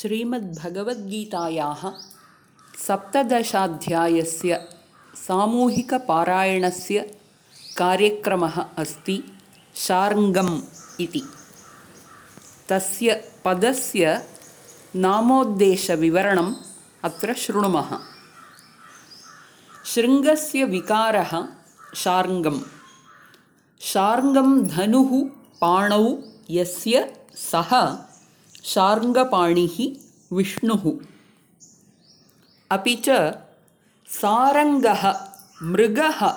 श्रीमद्भगवद्गीतायाः सप्तदशाध्यायस्य सामूहिकपारायणस्य कार्यक्रमः अस्ति शार्ङ्गम् इति। तस्य पदस्य नामोद्देशविवरणम् अत्र शृणुमः। शृङ्गस्य विकारः शार्ङ्गम्। शार्ङ्गं धनुः पाणौ यस्य सः शार्ङ्गपाणिः विष्णुः। अपि च सारङ्गः मृगः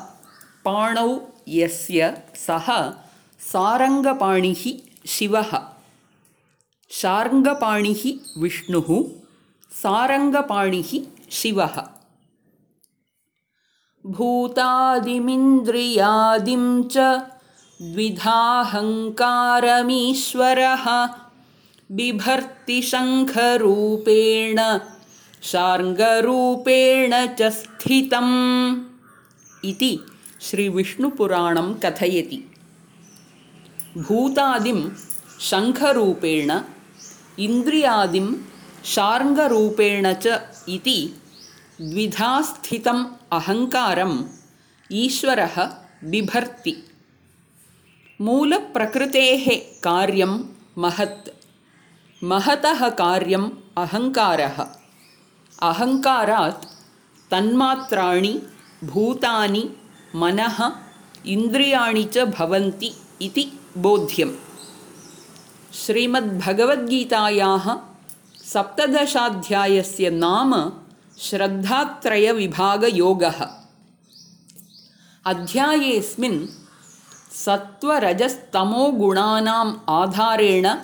पाणौ यस्य सः सारङ्गपाणिः शिवः। शार्ङ्गपाणिः विष्णुः, सारङ्गपाणिः शिवः। भूतादिमिन्द्रियादिं च द्विधाहङ्कारमीश्वरः बिभर्ति शङ्खरूपेण शार्ङ्गरूपेण च स्थितम् इति श्रीविष्णुपुराणं कथयति। भूतादिं शङ्खरूपेण इन्द्रियादिं शार्ङ्गरूपेण च इति द्विधा स्थितम् अहङ्कारम् ईश्वरः बिभर्ति। मूलप्रकृतेः कार्यं महत्, महतः कार्यम् अहङ्कारः। अहङ्कारात् तन्मात्राणि भूतानि मनः इन्द्रियाणि च भवन्ति इति बोध्यम्। श्रीमद्भगवद्गीतायाः सप्तदशाध्यायस्य नाम श्रद्धात्रयविभागयोगः। अध्यायेऽस्मिन् सत्त्वरजस्तमोगुणानाम् आधारेण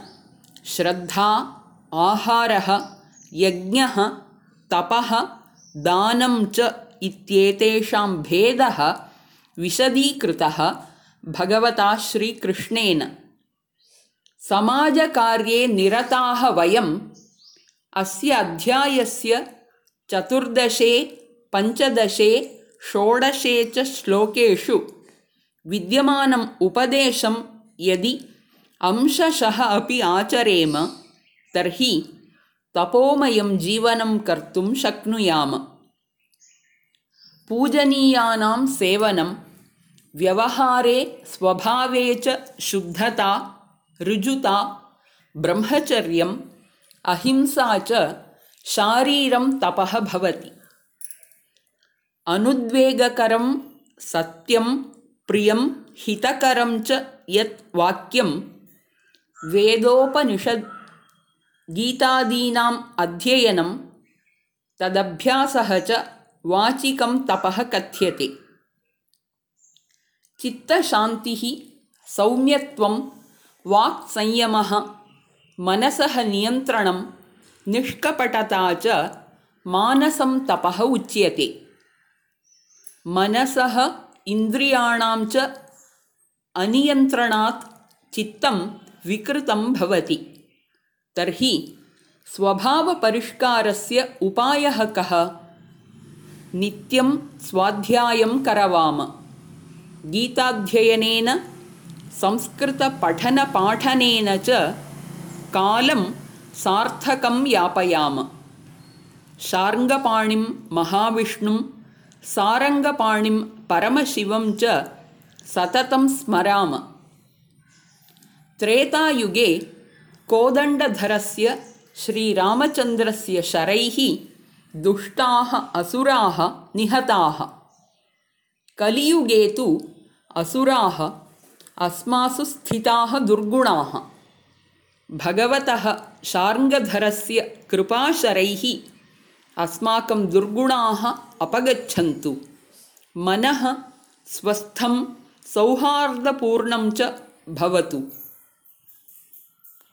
श्रद्धा, आहारः, यज्ञः, तपः, दानं च इत्येतेषां भेदः विशदीकृतः भगवता श्रीकृष्णेन। समाजकार्ये निरताः वयम् अस्य अध्यायस्य 14, 15, 16 च श्लोकेषु विद्यमानम् उपदेशं यदि अंशशः अपि आचरेम तर्हि तपोमयं जीवनं कर्तुं शक्नुयाम। पूजनीयानां सेवनं, व्यवहारे स्वभावे च शुद्धता, ऋजुता, ब्रह्मचर्यम्, अहिंसा च शारीरं तपः भवति। अनुद्वेगकरं सत्यं प्रियं हितकरं च यत् वाक्यं वेदोपनिषद् गीतादीनाम् अध्ययनं तदभ्यासः च वाचिकं तपः कथ्यते। चित्तशान्तिः, सौम्यत्वं, वाक्संयमः, मनसः नियन्त्रणं, निष्कपटता च मानसं तपः उच्यते। मनसः इन्द्रियाणां च अनियन्त्रणात् चित्तं विकृतं भवति। तर्हि स्वभावपरिष्कारस्य उपायः कः? नित्यं स्वाध्यायं करवाम। गीताध्ययनेन, संस्कृतपठनपाठनेन च कालं सार्थकं यापयाम। शार्ङ्गपाणिं महाविष्णुं, सारङ्गपाणिं परमशिवं च सततं स्मराम। त्रेतायुगे कोदण्डधरस्य श्रीरामचन्द्रस्य शरैः दुष्टाः असुराः निहताः। कलियुगे तु असुराः अस्मासु स्थिताः दुर्गुणाः। भगवतः शार्ङ्गधरस्य कृपाशरैः अस्माकं दुर्गुणाः अपगच्छन्तु। मनः स्वस्थं सौहार्दपूर्णं च भवतु।